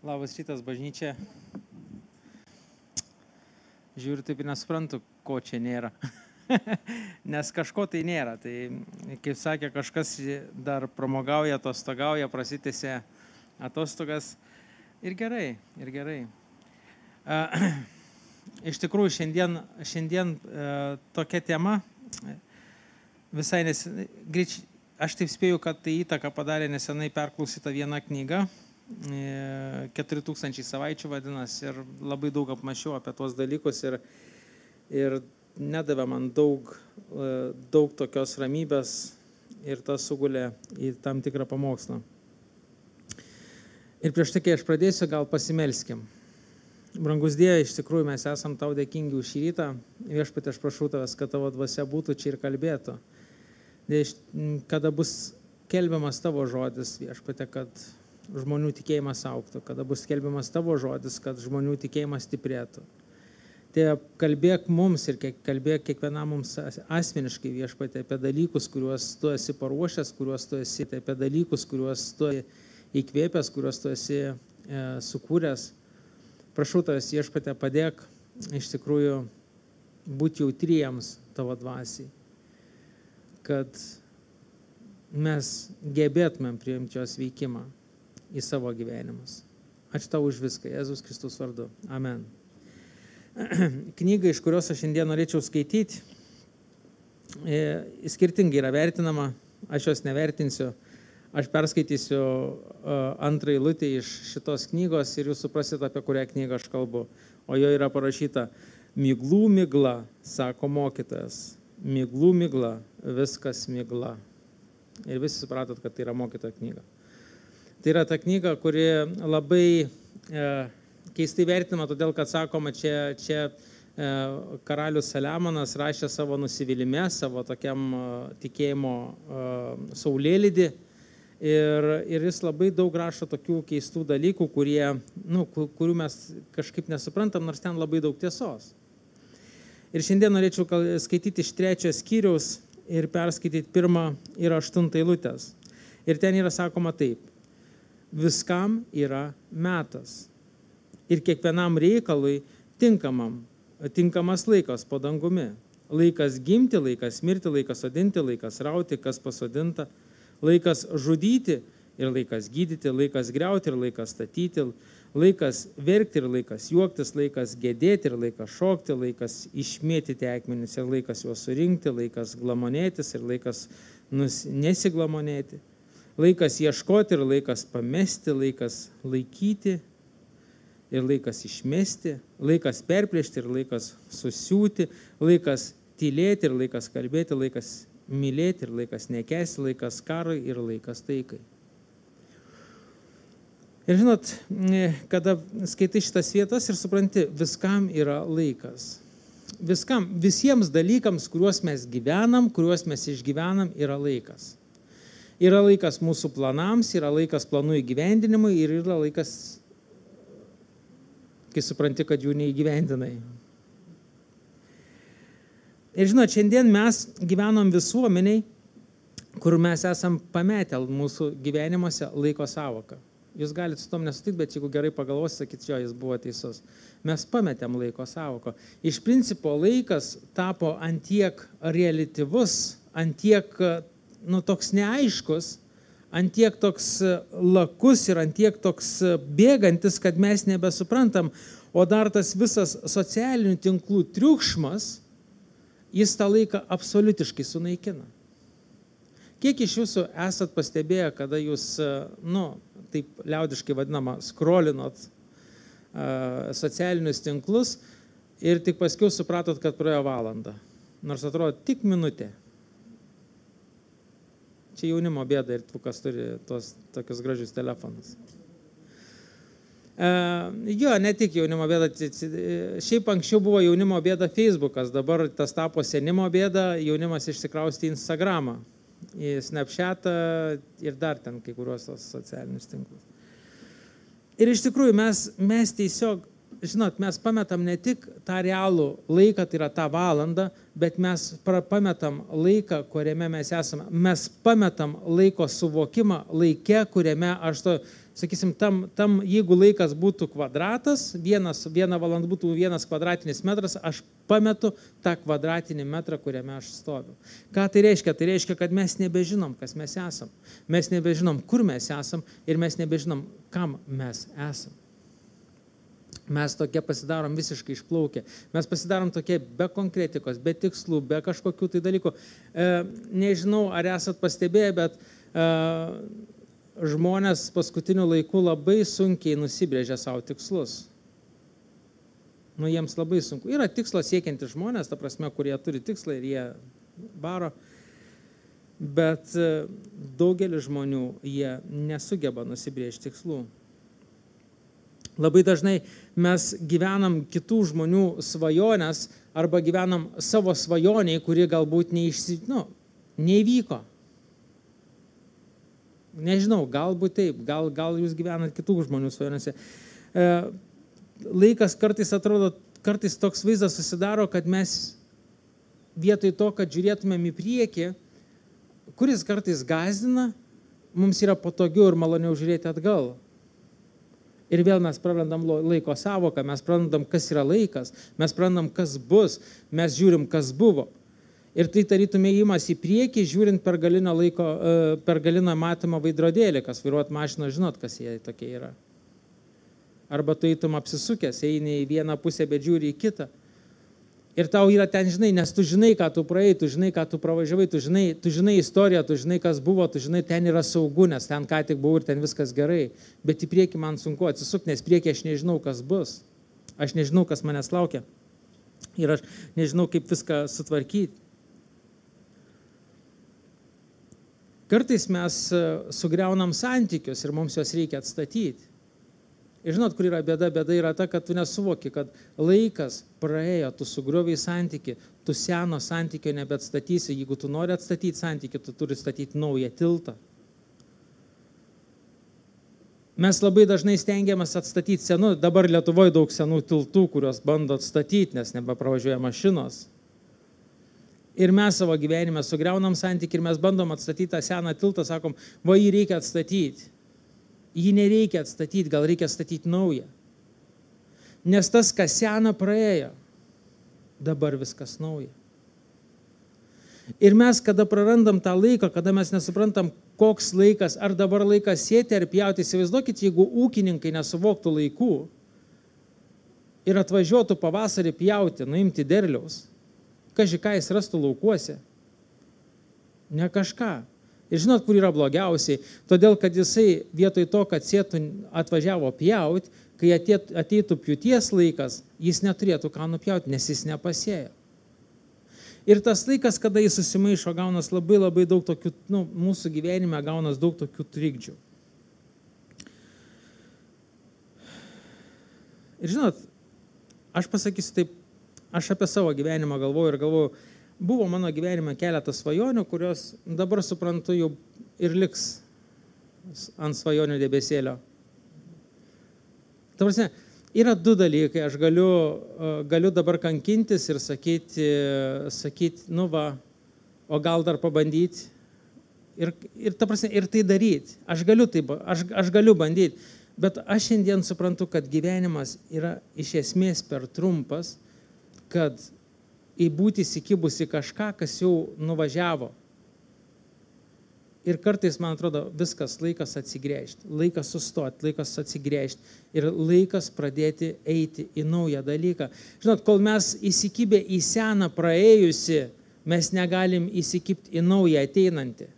Labas rytas, bažnyčia. Žiūriu, taip ir nesuprantu, ko čia nėra. Nes kažko tai nėra. Tai, kaip sakė, kažkas dar pramogauja, atostogauja, prasitėse atostogas. Ir gerai, ir gerai. Iš tikrųjų, šiandien tokia tema visai aš taip spėju, kad tai įtaką padarė nesenai perklausyta viena knyga. 4000 savaičių vadinasi ir labai daug apmašiau apie tuos dalykus ir nedavė man daug tokios ramybės ir tas sugulė į tam tikrą pamokslą. Ir prieš tai, kai aš pradėsiu, gal pasimelskim. Brangus Dieve, iš tikrųjų mes esam tau dėkingi už šį rytą. Viešpatie, aš prašau tavęs, kad tavo dvasia būtų čia ir kalbėtų. Kada bus kelbiamas tavo žodis, viešpatie, kad žmonių tikėjimas auktų, kada bus skelbiamas tavo žodis, kad žmonių tikėjimas stiprėtų. Tai kalbėk mums ir kalbėk kiekvienam mums asmeniškai, viešpatie, apie dalykus, kuriuos tu esi paruošęs, kuriuos tu esi, apie dalykus, kuriuos tu įkvėpęs, kuriuos tu esi sukūręs. Prašau tavęs, viešpatie, padėk iš tikrųjų būti jautriems tavo dvasiai, kad mes gebėtumėm priimti jos veikimą į savo gyvenimus. Ačiū tau už viską, Jėzus Kristus vardu. Amen. Knyga, iš kurios aš šiandien norėčiau skaityti, skirtingai yra vertinama, aš jos nevertinsiu. Aš perskaitysiu antrą eilutę iš šitos knygos ir jūs suprasit, apie kurią knygą aš kalbu. O jo yra parašyta: miglų migla, sako mokytojas. Miglų migla, viskas migla. Ir visi supratot, kad tai yra mokytojo knyga. Tai yra ta knyga, kuri labai keistai vertinama, todėl kad sakoma, čia karalius Saliamonas rašė savo nusivylimę, savo tokiam tikėjimo saulėlydį ir jis labai daug rašo tokių keistų dalykų, kurių mes kažkaip nesuprantam, nors ten labai daug tiesos. Ir šiandien norėčiau skaityti iš 3 skyriaus ir perskaityti 1 ir 8 eilutės. Ir ten yra sakoma taip: viskam yra metas ir kiekvienam reikalui tinkamas laikas po dangumi. Laikas gimti, laikas mirti, laikas sodinti, laikas rauti, kas pasodinta, laikas žudyti ir laikas gydyti, laikas griauti ir laikas statyti, laikas verkti ir laikas juoktis, laikas gedėti ir laikas šokti, laikas išmėtyti akmenis ir laikas juos surinkti, laikas glamonėtis ir laikas nesiglamonėti. Laikas ieškoti ir laikas pamesti, laikas laikyti ir laikas išmesti, laikas perplėšti ir laikas susiūti, laikas tylėti ir laikas kalbėti, laikas mylėti ir laikas nekęsti, laikas karui ir laikas taikai. Ir žinot, kada skaitai šitas vietas ir supranti, viskam yra laikas. Visiems dalykams, kuriuos mes gyvenam, kuriuos mes išgyvenam, yra laikas. Yra laikas mūsų planams, yra laikas planų įgyvendinimui ir yra laikas, kai supranti, kad jų neįgyvendinai. Ir žinot, šiandien mes gyvenom visuomeniai, kur mes esam pametę mūsų gyvenimuose laiko savoką. Jūs galite su tom nesutikti, bet jeigu gerai pagalvosite, sakyti, jo, jis buvo teisus. Mes pametėm laiko savoką. Iš principo laikas tapo antiek reliatyvus, antiek toks neaiškus, antiek toks lakus ir antiek toks bėgantis, kad mes nebesuprantam, o dar tas visas socialinių tinklų triukšmas, jis tą laiką absoliutiškai sunaikina. Kiek iš jūsų esat pastebėję, kada jūs, taip liaudiškai vadinama, skrolinot socialinius tinklus ir tik paskiau supratot, kad praėjo valanda, nors atrodo tik minutė. Čia jaunimo bėda ir tu, kas turi tokius gražius telefonus. Jo, ne tik jaunimo bėda, šiaip anksčiau buvo jaunimo bėda Facebookas, dabar tas tapo senimo bėda, jaunimas išsikrausti į Instagramą, į Snapchatą ir dar ten kai kuriuos tos socialinius tinklus. Ir iš tikrųjų mes tiesiog žinot, mes pametam ne tik tą realų laiką, tai yra tą valandą, bet mes pametam laiką, kuriame mes esame. Mes pametam laiko suvokimą laike, kuriame aš to, sakysim, jeigu laikas būtų kvadratas, viena valanda būtų 1 kvadratinis metras, aš pametu tą kvadratinį metrą, kuriame aš stoviu. Ką tai reiškia? Tai reiškia, kad mes nebežinom, kas mes esam. Mes nebežinom, kur mes esam ir mes nebežinom, kam mes esam. Mes tokie pasidarom visiškai išplaukę. Mes pasidarom tokie be konkretikos, be tikslų, be kažkokių tai dalykų. Nežinau, ar esat pastebėję, bet žmonės paskutiniu laiku labai sunkiai nusibrėžia savo tikslus. Jiems labai sunku. Yra tikslo siekianti žmonės, ta prasme, kurie turi tikslą ir jie varo. Bet daugelis žmonių, jie nesugeba nusibrėžti tikslų. Labai dažnai mes gyvenam kitų žmonių svajonės arba gyvenam savo svajoniai, kuri galbūt neįvyko. Nežinau, galbūt taip, gal jūs gyvenat kitų žmonių svajonėse. Laikas kartais atrodo, kartais toks vaizdas susidaro, kad mes vietoj to, kad žiūrėtumėm į priekį, kuris kartais gąsdina, mums yra patogiau ir maloniau žiūrėti atgal. Ir vėl mes prarandam laiko savoką, mes prarandam, kas yra laikas, mes prarandam, kas bus, mes žiūrim, kas buvo. Ir tai tarytum ėjimas į priekį, žiūrint per galiną matomą veidrodėlį, kas vairuot mašiną, žinot, kas jie tokie yra. Arba tu eitum apsisukęs, eini į vieną pusę, bet žiūri į kitą. Ir tau yra ten, žinai, nes tu žinai, ką tu praėjai, tu žinai, ką tu pravažiavai, tu žinai istoriją, tu žinai, kas buvo, tu žinai, ten yra saugu, nes ten ką tik buvau ir ten viskas gerai. Bet į priekį man sunku atsisukti, nes priekį aš nežinau, kas bus. Aš nežinau, kas manęs laukia. Ir aš nežinau, kaip viską sutvarkyti. Kartais mes sugriaunam santykius ir mums juos reikia atstatyti. Ir žinot, kur yra bėda? Bėda yra ta, kad tu nesuvoki, kad laikas praėjo, tu sugriovei santykį, tu seno santykio nebeatstatysi. Jeigu tu nori atstatyti santykį, tu turi statyti naują tiltą. Mes labai dažnai stengiamės atstatyti senų, dabar Lietuvoje daug senų tiltų, kurios bando atstatyti, nes nebepravažiuoja mašinos. Ir mes savo gyvenime sugriaunam santykį ir mes bandom atstatyti tą seną tiltą, sakom, va jį reikia atstatyti. Jį nereikia atstatyti, gal reikia statyti naują. Nes tas, kas sena, praėjo. Dabar viskas nauja. Ir mes, kada prarandam tą laiką, kada mes nesuprantam, koks laikas, ar dabar laikas sėti ar pjauti, įsivaizduokit, jeigu ūkininkai nesuvoktų laikų ir atvažiuotų pavasarį pjauti, nuimti derliaus, kaži ką jis rastų laukuose? Ne kažką. Ir žinot, kur yra blogiausiai? Todėl, kad jisai vietoj to, kad sėtų atvažiavo pjauti, kai ateitų pjūties laikas, jis neturėtų ką nupjauti, nes jis nepasėjo. Ir tas laikas, kada jis susimaišo, gaunas labai daug tokių, mūsų gyvenime gaunas daug tokių trikdžių. Ir žinot, aš pasakysiu taip, aš apie savo gyvenimą galvoju, buvo mano gyvenime keletas svajonių, kurios dabar suprantu jau ir liks ant svajonių debesėlio. Ta prasme, yra du dalykai, aš galiu dabar kankintis ir sakyti, o gal dar pabandyti. Ir ta prasme, ir tai daryti. Aš galiu bandyti, bet aš šiandien suprantu, kad gyvenimas yra iš esmės per trumpas, kad būti įsikibusi kažką, kas jau nuvažiavo. Ir kartais, man atrodo, viskas laikas atsigręžti, laikas sustoti, laikas atsigręžti ir laikas pradėti eiti į naują dalyką. Žinot, kol mes įsikibę į seną praėjusi, mes negalim įsikibti į naują ateinantį.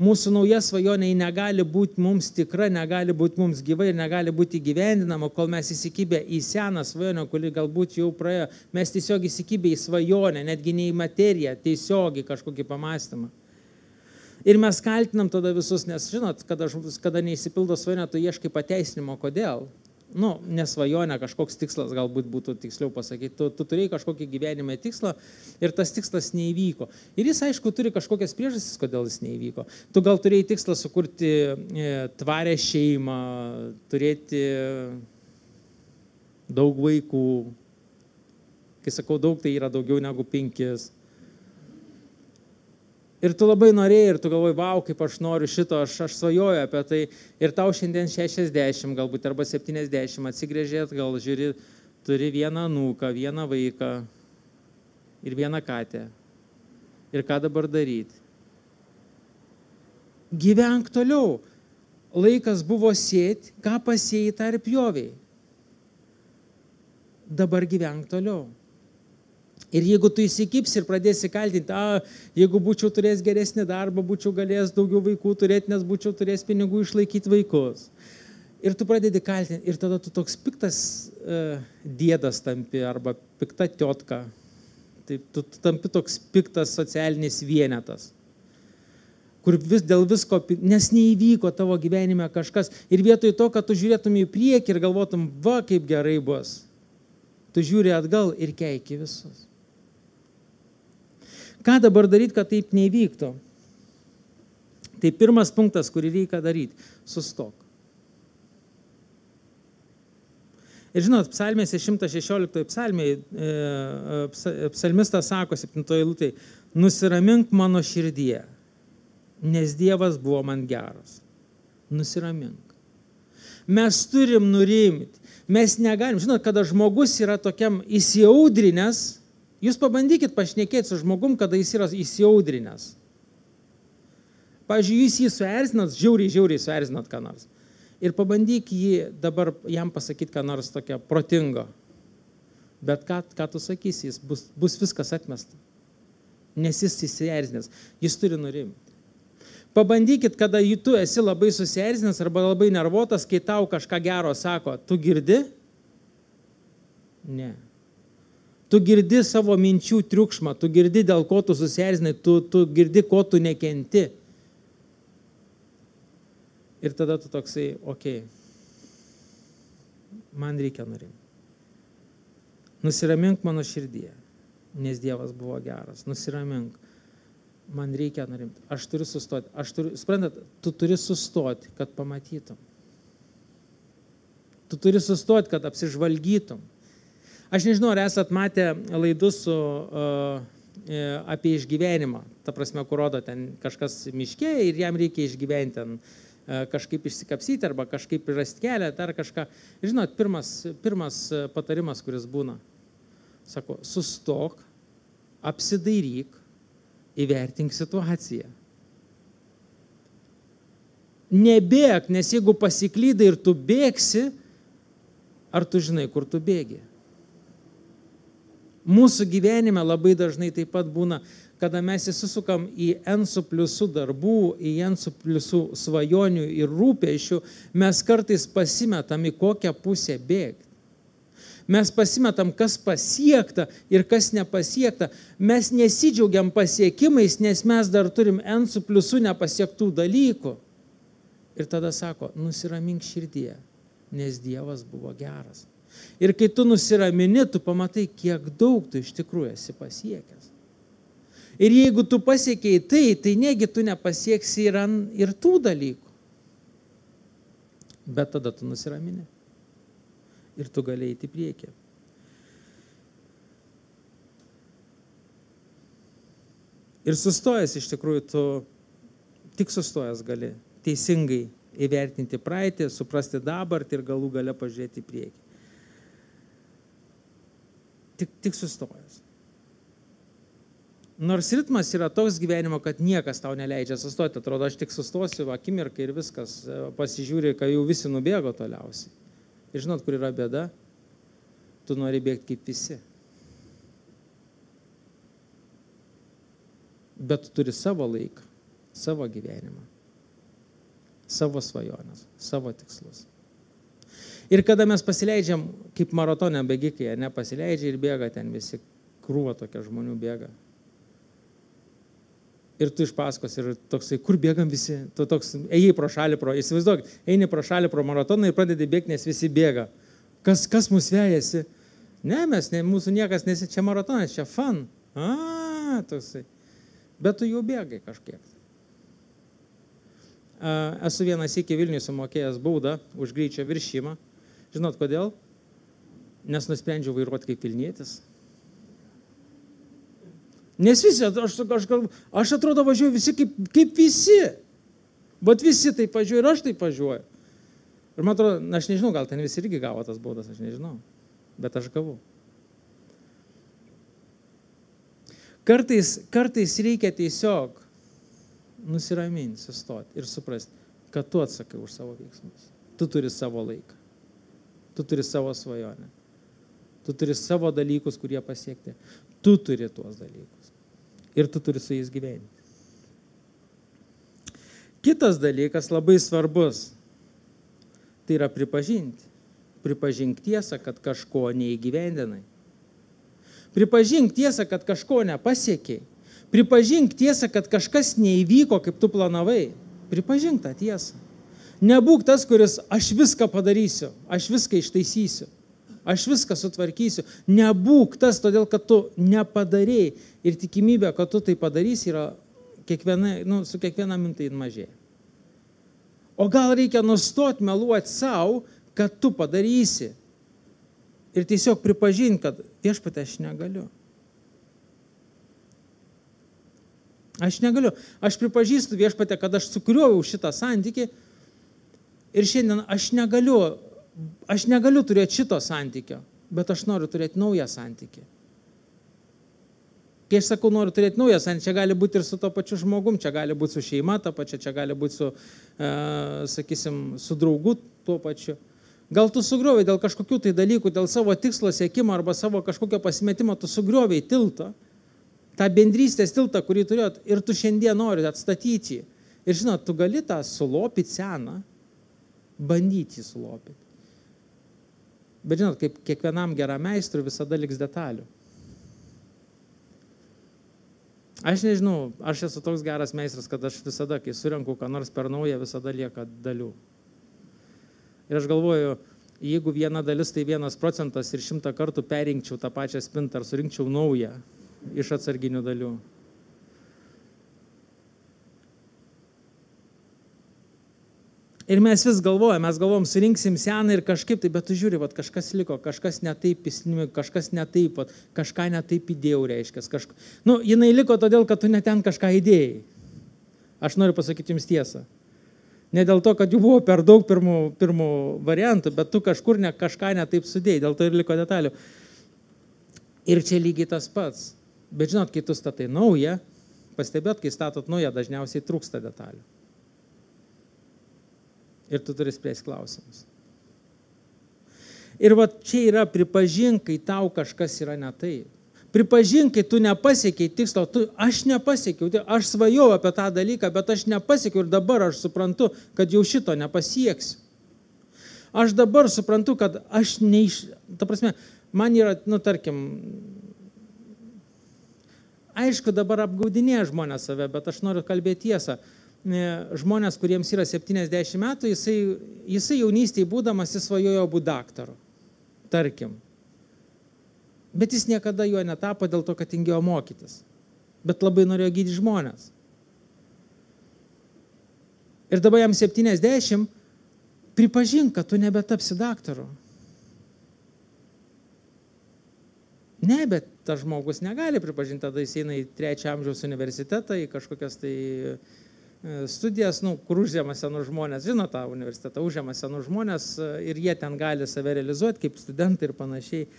Mūsų nauja svajonė negali būti mums tikra, negali būti mums gyva ir negali būti įgyvendinama, kol mes įsikibę į seną svajonę, kuri galbūt jau praėjo. Mes tiesiog įsikibę į svajonę, netgi ne į materiją, tiesiog į kažkokį pamąstymą. Ir mes kaltinam tada visus, nes žinot, kada neįsipildo svajonė, tu ieškai pateisinimo, kodėl. Nesvajonė, kažkoks tikslas galbūt būtų tiksliau pasakyti. Tu turėjai kažkokį gyvenime tikslą ir tas tikslas neįvyko. Ir jis, aišku, turi kažkokias priežastis, kodėl jis neįvyko. Tu gal turėjai tikslą sukurti tvarę šeimą, turėti, daug vaikų. Kai sakau daug, tai yra daugiau negu 5. Ir tu labai norėjai, ir tu galvoji, vau, kaip aš noriu šito, aš svajoju apie tai. Ir tau šiandien 60 galbūt, arba 70, atsigrėžėt, gal žiūri, turi vieną anūką, vieną vaiką ir vieną katę. Ir ką dabar daryti? Gyvenk toliau. Laikas buvo sėti, ką pasėjai, tą ir pjoviai. Dabar gyvenk toliau. Ir jeigu tu įsikipsi ir pradėsi kaltinti, jeigu būčiau turėjęs geresnį darbą, būčiau galėjęs daugiau vaikų turėti, nes būčiau turėjęs pinigų išlaikyti vaikus. Ir tu pradedi kaltinti, ir tada tu toks piktas dėdas tampi, arba pikta tiotka. Tai tu tampi toks piktas socialinis vienetas, kur dėl visko, nes neįvyko tavo gyvenime kažkas. Ir vietoj to, kad tu žiūrėtum į priekį ir galvotum, va, kaip gerai bus, tu žiūri atgal ir keiki visus. Ką dabar daryti, kad taip neįvyktų? Tai pirmas punktas, kurį reikia daryti – sustok. Ir žinot, psalmėse 116 psalmėje psalmistas sako 7 eilutėje, nusiramink mano širdyje, nes Dievas buvo man geras. Nusiramink. Mes turim nurimti. Mes negalim. Žinot, kada žmogus yra tokiam įsiaudrinęs, jūs pabandykit pašnekėti su žmogum, kada jis yra įsiaudrinęs. Pavyzdžiui, jūs jį suerzinat, žiauriai suerzinat ką nors. Ir pabandyk jį dabar jam pasakyti ką nors tokio protingo. Bet ką tu sakysi, jis bus viskas atmesta. Nes jis įsierzinęs. Jis turi nurimti. Pabandykit, kada tu esi labai susierzinęs arba labai nervuotas, kai tau kažką gero sako, tu girdi? Ne. Tu girdi savo minčių triukšmą, tu girdi, dėl ko tu susierzinai, tu girdi, ko tu nekenti. Ir tada tu toksai, okei, man reikia nurimti. Nusiramink mano širdyje, nes Dievas buvo geras. Nusiramink, man reikia nurimti. Aš turiu sustoti. Suprantat, tu turi sustoti, kad pamatytum. Tu turi sustoti, kad apsižvalgytum. Aš nežinau, ar esat matę laidus apie išgyvenimą. Ta prasme, kur rodo ten kažkas miške ir jam reikia išgyventi ten kažkaip išsikapsyti arba kažkaip rasti kelią, dar kažką. Žinot, pirmas patarimas, kuris būna, sako, sustok, apsidairyk, įvertink situaciją. Nebėk, nes jeigu pasiklydai ir tu bėgsi, ar tu žinai, kur tu bėgi? Mūsų gyvenime labai dažnai taip pat būna, kada mes įsisukam į N++ darbų, į N++ svajonių ir rūpesčių, mes kartais pasimetam į kokią pusę bėgti. Mes pasimetam, kas pasiekta ir kas nepasiekta. Mes nesidžiaugiam pasiekimais, nes mes dar turim N++ nepasiektų dalykų. Ir tada sako, nusiramink širdyje, nes Dievas buvo geras. Ir kai tu nusiramini, tu pamatai, kiek daug tu iš tikrųjų esi pasiekęs. Ir jeigu tu pasiekiai tai negi tu nepasieksi ir tų dalykų. Bet tada tu nusiramini. Ir tu gali eiti į priekį. Ir sustojęs iš tikrųjų, tu tik sustojęs gali teisingai įvertinti praeitį, suprasti dabartį ir galų gale pažiūrėti į priekį. Tik sustojęs. Nors ritmas yra toks gyvenimo, kad niekas tau neleidžia sustoti. Atrodo, aš tik sustosiu akimirką ir viskas. Pasižiūri, kai jau visi nubėgo toliausiai. Ir žinot, kur yra bėda? Tu nori bėgti kaip visi. Bet tu turi savo laiką, savo gyvenimą, savo svajonės, savo tikslus. Ir kada mes pasileidžiam, kaip maratone bėgikai, nepasileidžia ir bėga ten visi, krūva tokia žmonių bėga. Ir tu iš paskos ir toksai, kur bėgam visi, tu toks, ėjai pro šalį, įsivaizduok, eini pro šalį pro maratoną ir pradedi bėgti, nes visi bėga. Kas mus vejasi? Ne, mūsų niekas nesi, čia maratonas, čia fun. Toksai. Bet tu jau bėgai kažkiek. Esu vieną sykį Vilniuje sumokėjęs baudą už greičio viršimą. Žinot kodėl? nes nusprendžiau vairuoti kaip Vilnietis. Nes visi, aš atrodo važiuoju visi kaip visi. Bet visi taip važiuoja ir aš taip važiuoju. Ir man atrodo, aš nežinau, gal ten visi irgi gavo tas baudas, aš nežinau. Bet aš gavau. Kartais reikia tiesiog nusiraminti, sustoti ir suprasti, kad tu atsakai už savo veiksmus. Tu turi savo laiką. Tu turi savo svajonę. Tu turi savo dalykus, kurie pasiekti. Tu turi tuos dalykus. Ir tu turi su jais gyventi. Kitas dalykas labai svarbus. Tai yra pripažinti. Pripažink tiesą, kad kažko neįgyvendinai. Pripažink tiesą, kad kažko nepasiekiai. Pripažink tiesą, kad kažkas neįvyko, kaip tu planavai. Pripažink tą tiesą. Nebūk tas, kuris aš viską padarysiu, aš viską ištaisysiu, aš viską sutvarkysiu. Nebūk tas, todėl kad tu nepadarėjai. Ir tikimybė, kad tu tai padarysi, yra su kiekviena mintai mažėja. O gal reikia nustoti meluoti savo, kad tu padarysi. Ir tiesiog pripažinti, kad viešpatie aš negaliu. Aš negaliu. Aš pripažįstu viešpatie, kad aš sukrioviau šitą santykį ir šiandien aš negaliu turėti šito santykio, bet aš noriu turėti naują santykį. Kai aš sakau, noriu turėti naują santykį, čia gali būti ir su to pačiu žmogum, čia gali būti su šeima ta pačia, čia gali būti su draugu tuo pačiu. Gal tu sugriovai dėl kažkokių tai dalykų, dėl savo tikslo siekimo arba savo kažkokio pasimetimo, tu sugriovai tiltą, tą bendrystės tiltą, kurį turėjot, ir tu šiandien nori atstatyti. Ir žinot, tu gali tą sulopyti seną, bandyti jį sulopyti. Bet žinot, kaip kiekvienam geram meistrui visada liks detalių. Aš nežinau, aš esu toks geras meistras, kad aš visada, kai surenku ką nors per naują, visada lieka dalių. Ir aš galvoju, jeigu viena dalis tai 1% ir 100 kartų perinkčiau tą pačią spintą ar surinkčiau naują iš atsarginių dalių. Ir mes vis galvojam, surinksim seną ir kažkaip tai, bet tu žiūri, kažkas liko, kažkas netaip įsinimi, kažkas netaip, kažką netaip įdėjau, reiškia. Jinai liko todėl, kad tu ne ten kažką įdėjai. Aš noriu pasakyti jums tiesą. Ne dėl to, kad jų buvo per daug pirmų variantų, bet tu kažkur kažką netaip sudėjai, dėl to ir liko detalių. Ir čia lygiai tas pats. Bet žinot, kai tu statai naują, pastebėt, kai statot naują, dažniausiai trūksta detalių. Ir tu turi spręsti klausimus. Ir čia yra pripažink, kai tau kažkas yra ne taip. Pripažink, kai tu nepasiekiai tikslo, aš nepasiekiau, aš svajojau apie tą dalyką, bet aš nepasiekiau ir dabar aš suprantu, kad jau šito nepasieksiu. Aš dabar suprantu, kad aš ta prasme, man yra, tarkim, aišku, dabar apgaudinėja žmonės save, bet aš noriu kalbėti tiesą. Žmonės, kuriems yra 70 metų, jisai jaunystėje būdamas jis svajojo būti daktaru, tarkim. Bet jis niekada juo netapo dėl to, kad tingėjo mokytis. Bet labai norėjo gydyti žmonės. Ir dabar jam 70, pripažink, kad tu nebetapsi daktaru. Ne, bet tas žmogus negali pripažinti, tada jis eina į 3 amžiaus universitetą, į kažkokias tai studijas, kur užžema senų žmonės, žino tą universitetą, užžema senų žmonės ir jie ten gali save realizuoti kaip studentai ir panašiai.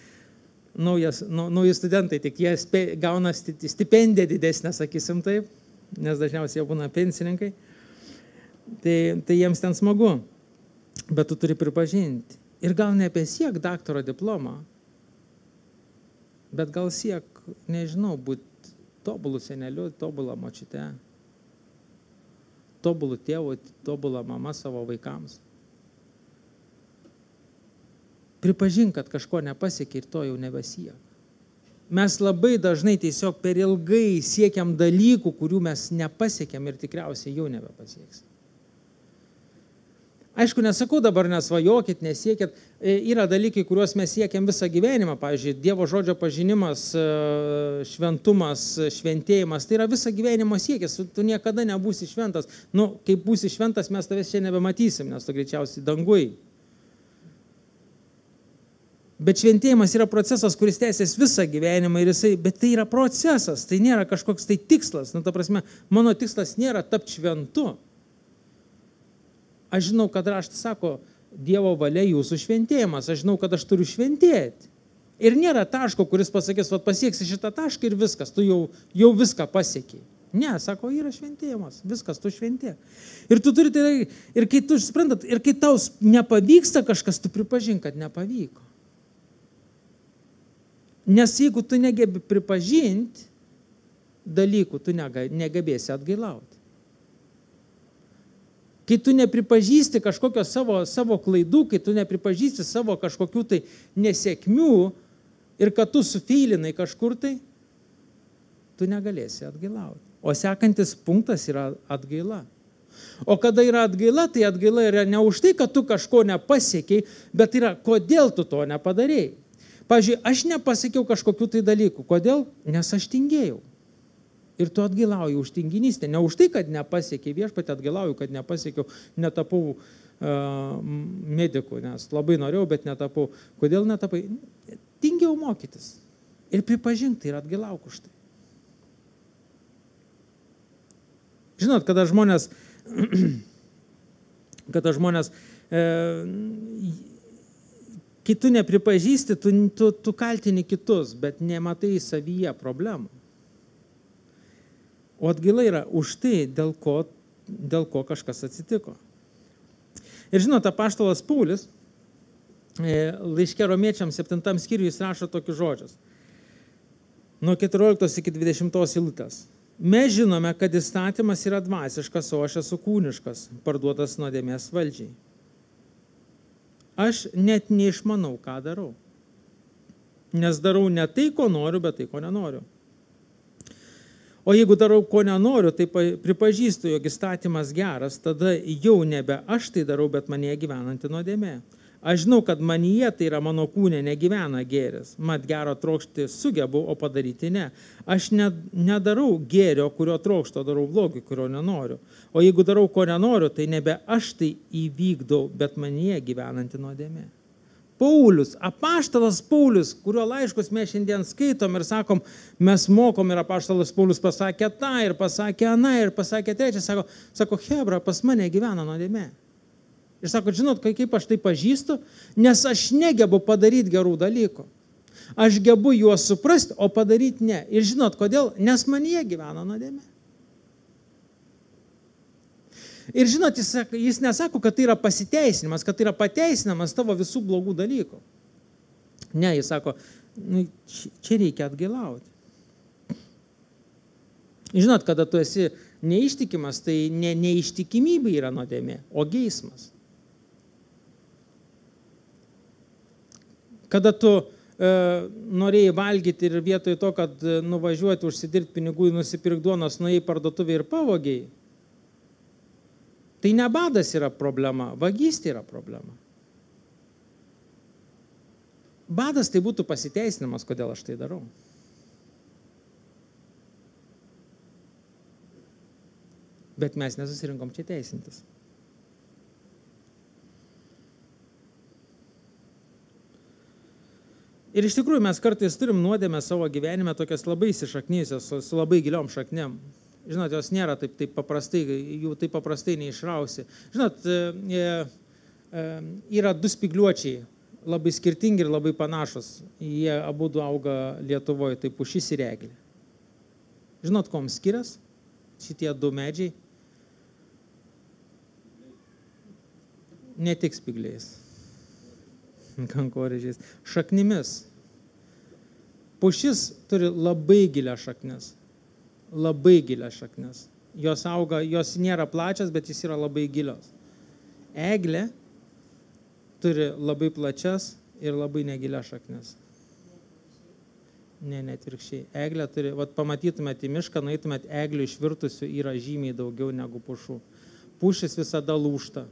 Nauji studentai, tik jie gauna stipendiją didesnę, sakysim taip, nes dažniausiai jie būna pensininkai. Tai jiems ten smagu, bet tu turi pripažinti. Ir gal nepasiek daktaro diplomą, bet gal siek, nežinau, būti tobulų seneliu, tobulą močiute, tobulų tėvų, tobulą mamą savo vaikams. Pripažink, kad kažko nepasiekė ir to jau nebesiek. Mes labai dažnai tiesiog per ilgai siekiam dalykų, kurių mes nepasiekėm ir tikriausiai jau nebepasieksim. Aišku, nesakau dabar nesvajokit, nesiekit. Yra dalykai, kuriuos mes siekiam visą gyvenimą. Pavyzdžiui, Dievo žodžio pažinimas, šventumas, šventėjimas. Tai yra visą gyvenimo siekis. Tu niekada nebūsi šventas. Kai būsi šventas, mes tavęs čia nebematysim, nes tu greičiausiai dangui. Bet šventėjimas yra procesas, kuris tęsiasi visą gyvenimą, bet tai yra procesas, tai nėra kažkoks tai tikslas. Nu, ta prasme, mano tikslas nėra tapti šventu. Aš žinau, kad raštas sako, Dievo valia jūsų šventėjimas, aš žinau, kad aš turiu šventėti. Ir nėra taško, kuris pasakys, vat pasieksi šitą tašką ir viskas, tu jau viską pasiekiai. Ne, sako, yra šventėjimas, viskas, tu šventė. Ir tu turi, ir kai tu suprantat, ir kai tau nepavyksta kažkas, tu pripažink, kad nepavyko. Nes jeigu tu negebi pripažinti dalykų, tu negebėsi atgailauti. Kai tu nepripažįsti kažkokio savo klaidų, kai tu nepripažįsti savo kažkokių tai nesėkmių ir kad tu sufeilinai kažkur tai, tu negalėsi atgailauti. O sekantis punktas yra atgaila. O kada yra atgaila, tai atgaila yra ne už tai, kad tu kažko nepasiekiai, bet yra, kodėl tu to nepadarėjai. Pavyzdžiui, aš nepasakiau kažkokių tai dalykų. Kodėl? Nes aš tingėjau. Ir tu atgailauji už tinginystę. Ne už tai, kad nepasiekiai, viešpatį atgailauju, kad nepasiekiau, netapau mediku, nes labai norėjau, bet netapau. Kodėl netapai? Tingėjau mokytis. Ir pripažink, tai ir atgailauk už tai. Žinot, kada žmonės kai tu nepripažįsti, tu kaltini kitus, bet nematai savyje problemų. O atgaila yra už tai, dėl ko kažkas atsitiko. Ir žinot, apaštalas Paulius, laiške Romiečiams 7 skyriuje jis rašo tokius žodžius. Nuo 14 iki 20 eilutės. Mes žinome, kad įstatymas yra dvasiškas, o aš esu kūniškas, parduotas nuodėmės valdžiai. Aš net neišmanau, ką darau. Nes darau ne tai, ko noriu, bet tai, ko nenoriu. O jeigu darau, ko nenoriu, tai pripažįstu, jog įstatymas geras, tada jau nebe aš tai darau, bet manyje gyvenanti nuodėmė. Aš žinau, kad manyje, tai yra mano kūne, negyvena gėris. Mat gero trokšti sugebu, o padaryti ne. Aš nedarau gėrio, kurio trokšto, darau blogį, kurio nenoriu. O jeigu darau, ko nenoriu, tai nebe aš tai įvykdau, bet manyje gyvenanti nuodėmė. Paulius, apaštalas Paulius, kurio laiškus mes šiandien skaitom ir sakom, mes mokom ir apaštalas Paulius pasakė tą ir pasakė aną ir pasakė trečią, sako, Hebra, pas mane gyvena nuodėmė. Ir sako, žinot, kaip aš tai pažįstu, nes aš negebu padaryti gerų dalykų. Aš gebu juos suprasti, o padaryti ne. Ir žinot, kodėl? Nes manyje gyvena nuodėmė. Ir žinot, jis nesako, kad tai yra pasiteisinimas, kad tai yra pateisinamas tavo visų blogų dalykų. Ne, jis sako, čia reikia atgailauti. Žinot, kada tu esi neištikimas, tai neištikimybė yra nuodėmė, o geismas. Kada tu norėjai valgyti ir vietoj to, kad nuvažiuoti, užsidirbti pinigų, nusipirkti duonos, nuėjai parduotuvę ir pavogiai, tai ne badas yra problema, vagystė yra problema. Badas tai būtų pasiteisinimas, kodėl aš tai darau. Bet mes nesusirinkom čia teisintis. Ir iš tikrųjų mes kartais turim nuodėmę savo gyvenime tokias labai įsišaknyjusios, su labai giliom šaknėm. Žinot, jos nėra taip paprastai, jų taip paprastai neišrausi. Žinot, yra du spygliuočiai, labai skirtingi ir labai panašus. Jie abudu auga Lietuvoje, tai pušis ir eglė. Žinot, kom skirias šitie du medžiai? Ne tik spygliais, kankorėžiais, šaknimis. Pušis turi labai gilią šaknis. Labai gilias šaknis. Jos auga, jos nėra plačias, bet jis yra labai gilios. Eglė turi labai plačias ir labai negilias šaknis. Ne, atvirkščiai. Eglė turi, pamatytumėte į mišką, nueitumėte, eglių išvirtusių yra žymiai daugiau negu pušų. Pušis visada lūžta.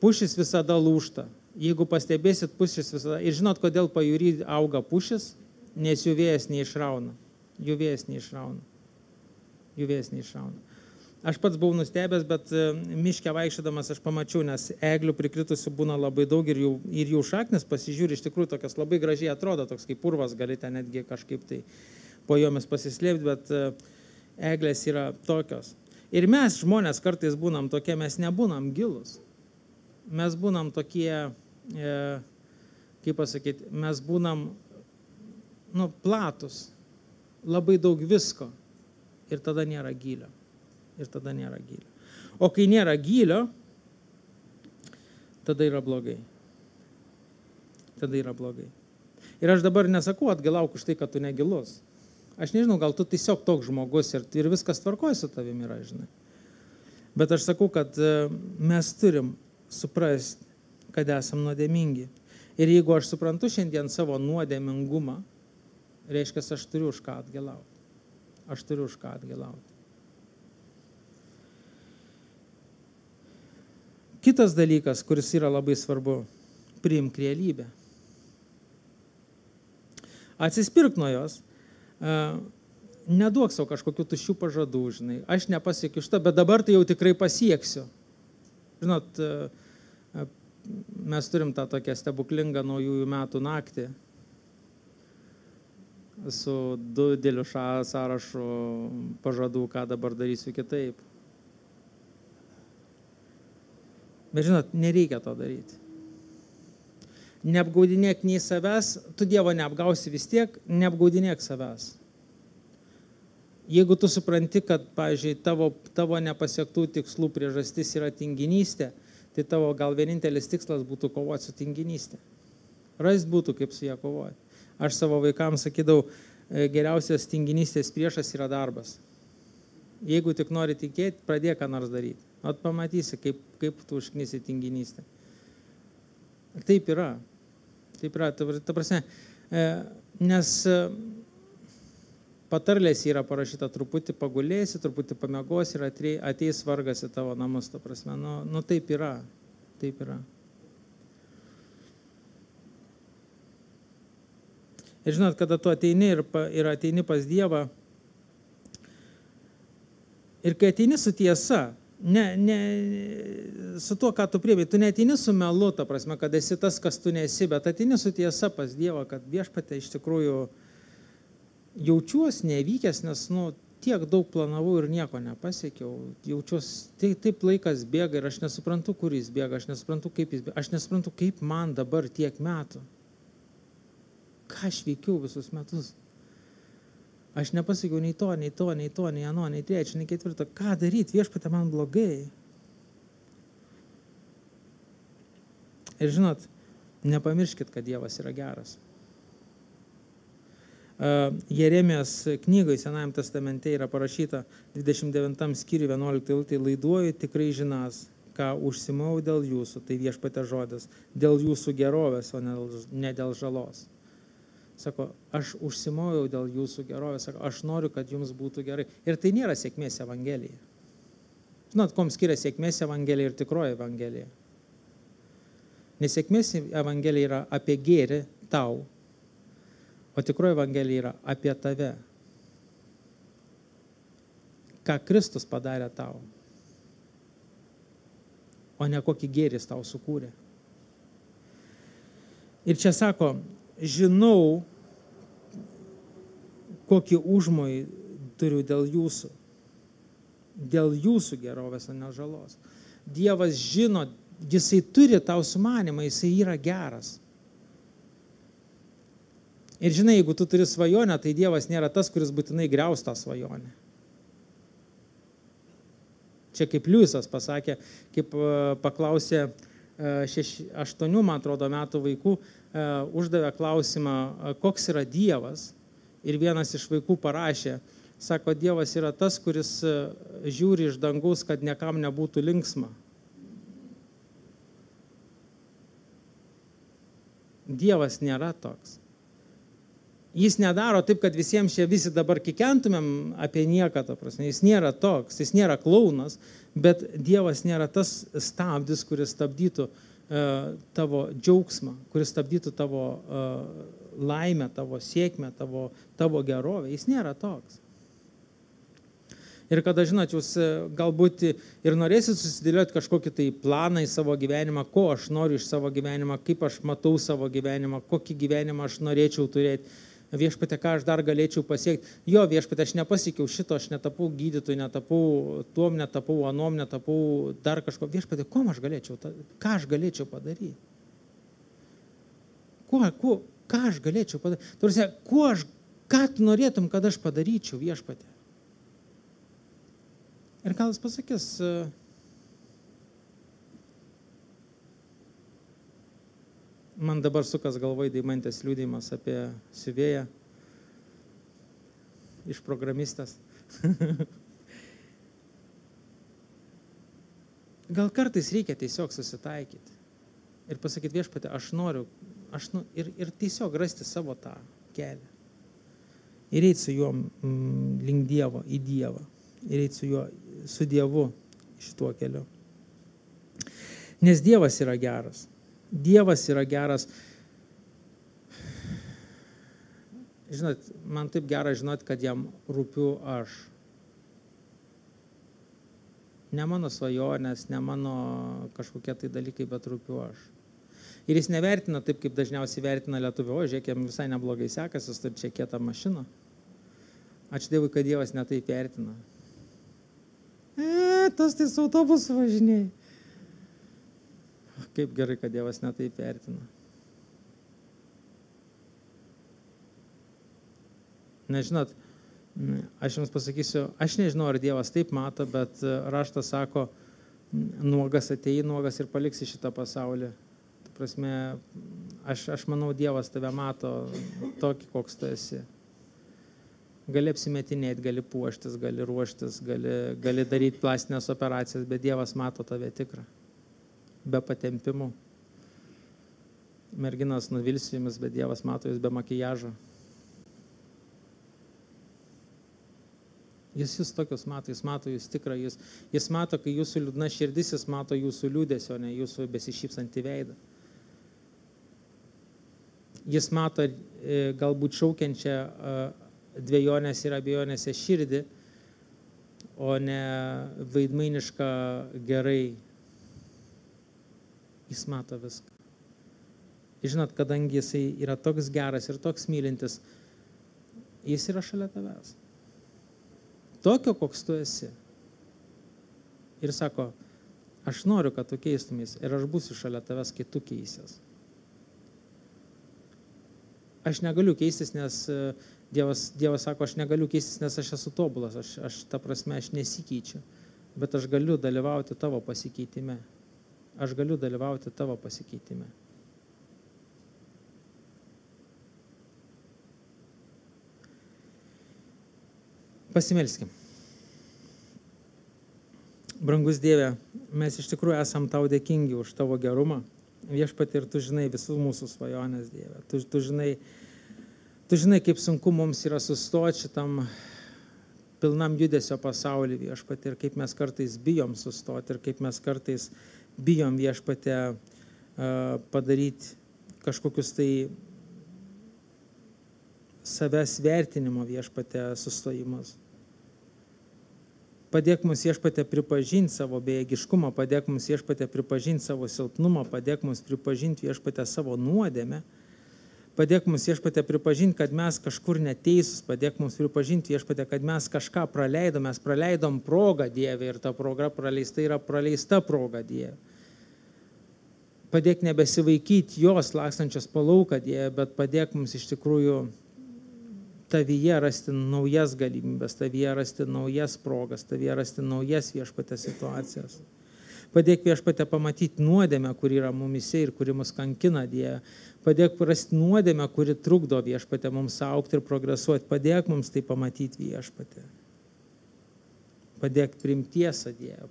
Pušis visada lūžta. Jeigu pastebėsit, pušis visada. Ir žinot, kodėl pajūry auga pušis? Nes jų vėjas neišrauna. Jų vėjas neišrauna. Aš pats buvau nustebęs, bet miške vaikščiodamas aš pamačiau, nes eglių prikritusių būna labai daug ir jų šaknis pasižiūri, iš tikrųjų tokias labai gražiai atrodo, toks kaip purvas, galite netgi kažkaip tai po jomis pasislėpti, bet eglės yra tokios. Ir mes žmonės kartais būnam tokie, mes nebūnam gilus. Mes būnam tokie, kaip pasakyti, mes būnam platus, labai daug visko ir tada nėra gylio. O kai nėra gylio, tada yra blogai. Ir aš dabar nesakau atgalauk už tai, kad tu negilus. Aš nežinau, gal tu tiesiog toks žmogus ir viskas tvarkoja su tavimi yra, žinai. Bet aš sakau, kad mes turim suprasti, kad esam nuodėmingi. Ir jeigu aš suprantu šiandien savo nuodėmingumą, reiškia, aš turiu už ką atgalauti. Kitas dalykas, kuris yra labai svarbu, priimk realybę. Atsispirk nuo jos, neduok savo kažkokių tuščių pažadų, žinai. Aš nepasiekiu šitą, bet dabar tai jau tikrai pasieksiu. Žinot, mes turim tą tokią stebuklingą naujųjų metų naktį su dideliu sąrašu pažadų, ką dabar darysiu kitaip. Bet žinot, nereikia to daryti. Neapgaudinėk nei savęs, tu Dievo neapgausi vis tiek, neapgaudinėk savęs. Jeigu tu supranti, kad, pavyzdžiui, tavo nepasiektų tikslų priežastis yra tinginystė, tai tavo gal vienintelis tikslas būtų kovoti su tinginystė. Rast būtų, kaip su ją kovoti. Aš savo vaikams sakydavau, geriausias tinginystės priešas yra darbas. Jeigu tik nori tikėti, pradėk ką nors daryti. At pamatysi, kaip tu užknisi tinginystę. Taip yra. Ta prasme, nes patarlės yra parašyta, truputį pagulėsi, truputį pamiegosi ir ateis vargas į tavo namus, ta prasme. Taip yra. Ir žinot, kada tu ateini ir ateini pas Dievą, ir kai ateini su tiesa, ne su tuo, ką tu priėmei, tu neateini su melu, ta prasme, kad esi tas, kas tu nesi, bet ateini su tiesa pas Dievą, kad Viešpatie iš tikrųjų jaučiuosi nevykęs, nes tiek daug planavau ir nieko nepasiekiau. Jaučiuosi, taip laikas bėga ir aš nesuprantu, kur jis bėga, aš nesuprantu, kaip jis bėga, aš nesuprantu, kaip man dabar tiek metų. Ką aš veikiau visus metus? Aš nepasakiau nei to, nei ano, nei trečio, nei ketvirto. Ką daryti? Viešpatie, man blogai. Ir žinot, nepamirškit, kad Dievas yra geras. Jeremijos knygoje Senajam testamente yra parašyta 29 skyriui 11 eilutė, laiduoju tikrai žinas, ką užsimau dėl jūsų, tai Viešpatie žodis, dėl jūsų gerovės, o ne dėl žalos. Sako, aš užsimojau dėl jūsų gerovės, sako, aš noriu, kad jums būtų gerai. Ir tai nėra sėkmės evangelija. Žinot, kom skiria sėkmės evangelija ir tikroji evangelija. Nes sėkmės evangelija yra apie gėrį tau, o tikroji evangelija yra apie tave. Ką Kristus padarė tau, o ne kokį gėrį tau sukūrė. Ir čia sako, žinau, kokį užmojį turiu dėl jūsų gerovės, o ne žalos. Dievas žino, jisai turi tau sumanimą, jisai yra geras. Ir žinai, jeigu tu turi svajonę, tai Dievas nėra tas, kuris būtinai griaus tą svajonę. Čia kaip Liujisas pasakė, kaip paklausė 8, man atrodo, metų vaikų, uždavė klausimą, koks yra Dievas. Ir vienas iš vaikų parašė, sako, Dievas yra tas, kuris žiūri iš dangaus, kad niekam nebūtų linksma. Dievas nėra toks. Jis nedaro taip, kad visiems čia visi dabar kikentumėm apie nieką, ta prasme. Jis nėra toks, jis nėra klaunas, bet Dievas nėra tas stabdis, kuris stabdytų tavo džiaugsmą, kuris stabdytų tavo laimę, tavo sėkmę, tavo gerovę. Jis nėra toks. Ir kada, žinot, jūs galbūt ir norėsit susidėlioti kažkokį tai planą į savo gyvenimą, ko aš noriu iš savo gyvenimą, kaip aš matau savo gyvenimą, kokį gyvenimą aš norėčiau turėti. Viešpatie, ką aš dar galėčiau pasiekti. Jo, viešpatie, aš nepasiekiau šito, aš netapau gydytojų, netapau tuom, netapau anom, netapau dar kažko. Viešpatie, ką aš galėčiau padaryti? Ką aš galėčiau padaryti? Turisi, ką tu norėtum, kad aš padaryčiau, viešpatie? Ir gal jis pasakys, man dabar sukas galvoj Deimantės liudijimas apie siuvėją iš programistės. Gal kartais reikia tiesiog susitaikyti ir pasakyti, viešpatie, aš noriu ir tiesiog rasti savo tą kelią. Ir eiti su juo link Dievo, į Dievą. Ir eiti su Dievu šituo keliu. Nes Dievas yra geras. Dievas yra geras. Žinot, man taip gera žinot, kad jam rūpiu aš. Ne mano svajonės, ne mano kažkokie tai dalykai, bet rūpiu aš. Ir jis nevertina taip, kaip dažniausiai vertina lietuvių. O, žiūrėk, jam visai neblogai sekasi, jis turi čia kietą mašiną. Ačiū Dievui, kad Dievas netaip vertina. Tas tai su autobusu važinėjai. Kaip gerai, kad Dievas netaip vertina. Nežinot, aš jums pasakysiu, aš nežinau, ar Dievas taip mato, bet raštas sako, nuogas atėjai, nuogas ir paliksi šitą pasaulį. Ta prasme, aš manau, Dievas tave mato tokį, koks tu esi. Gali apsimetinėti, gali puoštis, gali ruoštis, gali daryti plastinės operacijas, bet Dievas mato tave tikrą. Be patempimų. Merginos nuvilsiu jumis, bet Dievas mato jūs be makijažo. Jis tokius mato, jis mato jūs tikrą, jis mato, kai jūsų liūdna širdis, jis mato jūsų liūdesio, ne jūsų besišypsantį veidą. Jis mato galbūt šaukiančią dvejonės ir abejonėse širdį, o ne vaidmainišką gerai. Jis mato viską. Žinot, kadangi jisai yra toks geras ir toks mylintis, jis yra šalia tavęs. Tokio, koks tu esi. Ir sako, aš noriu, kad tu keistumės ir aš būsiu šalia tavęs, kai tu keisies. Aš negaliu keistis, nes Dievas sako, aš negaliu keistis, nes aš esu tobulas, ta prasme, aš nesikeičiu, bet aš galiu dalyvauti tavo pasikeitime. Aš galiu dalyvauti tavo pasikeitime. Pasimelskim. Brangus Dieve, mes iš tikrųjų esam tau dėkingi už tavo gerumą. Viešpatie, ir tu žinai visus mūsų svajonės, Dieve. Tu žinai, kaip sunku mums yra sustoti šitam pilnam judesio pasaulį, Viešpatie, ir kaip mes kartais bijom sustoti, ir kaip mes kartais bijom, Viešpatie, padaryti kažkokius tai savęs vertinimo, Viešpatie, sustojimus. Padėk mums, Viešpatie, pripažinti savo bejėgiškumą, padėk mums, Viešpatie, pripažinti savo silpnumą, padėk mums pripažinti, Viešpatie, savo nuodėmę, padėk mums, Viešpatie, pripažinti, kad mes kažkur neteisus, padėk mums pripažinti, Viešpatie, kad mes kažką mes praleidom progą, Dieve, ir ta proga praleista yra praleista proga, Dieve. Padėk nebesivaikyti jos lakstančios po lauką, Dieve, bet padėk mums iš tikrųjų tavyje rasti naujas galimybės, tavyje rasti naujas progas, tavyje rasti naujas, Viešpatie, situacijas. Padėk, Viešpatie, pamatyti nuodėmę, kuri yra mumise ir kuri mus kankina, Dieve. Padėk rasti nuodėmę, kuri trukdo, Viešpatie, mums augti ir progresuoti. Padėk mums tai pamatyti, Viešpatie. Padėk priimti tiesą, Dieve.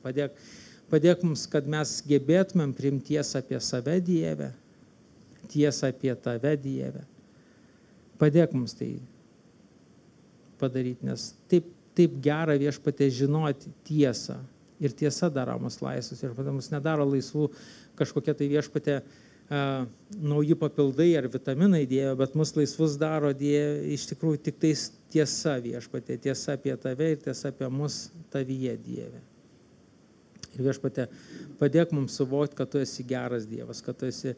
Padėk mums, kad mes gebėtumėm priimti tiesą apie save, Dieve. Tiesą apie tave, Dieve. Padėk mums tai padaryti, nes taip gera, Viešpatie, žinoti tiesą. Ir tiesa daro mus laisvus. Ir mus nedaro laisvų kažkokie tai, Viešpatie, nauji papildai ar vitaminai Dieve, bet mus laisvus daro Dieve iš tikrųjų tik tais tiesa Viešpatie, tiesa apie tave ir tiesa apie mus tavyje Dieve. Ir Viešpatie, padėk mums suvokti, kad tu esi geras Dievas, kad tu esi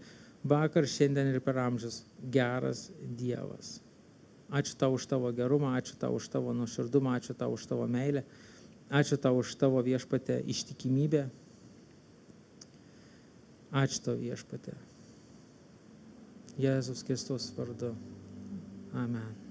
vakar, šiandien ir per amžius geras Dievas. Ačiū tau už tavo gerumą, ačiū tau už tavo nuoširdumą, ačiū tau už tavo meilę, ačiū tau už tavo Viešpatie ištikimybę. Ačiū tau Viešpatie. Jėzus Kristus vardu. Amen.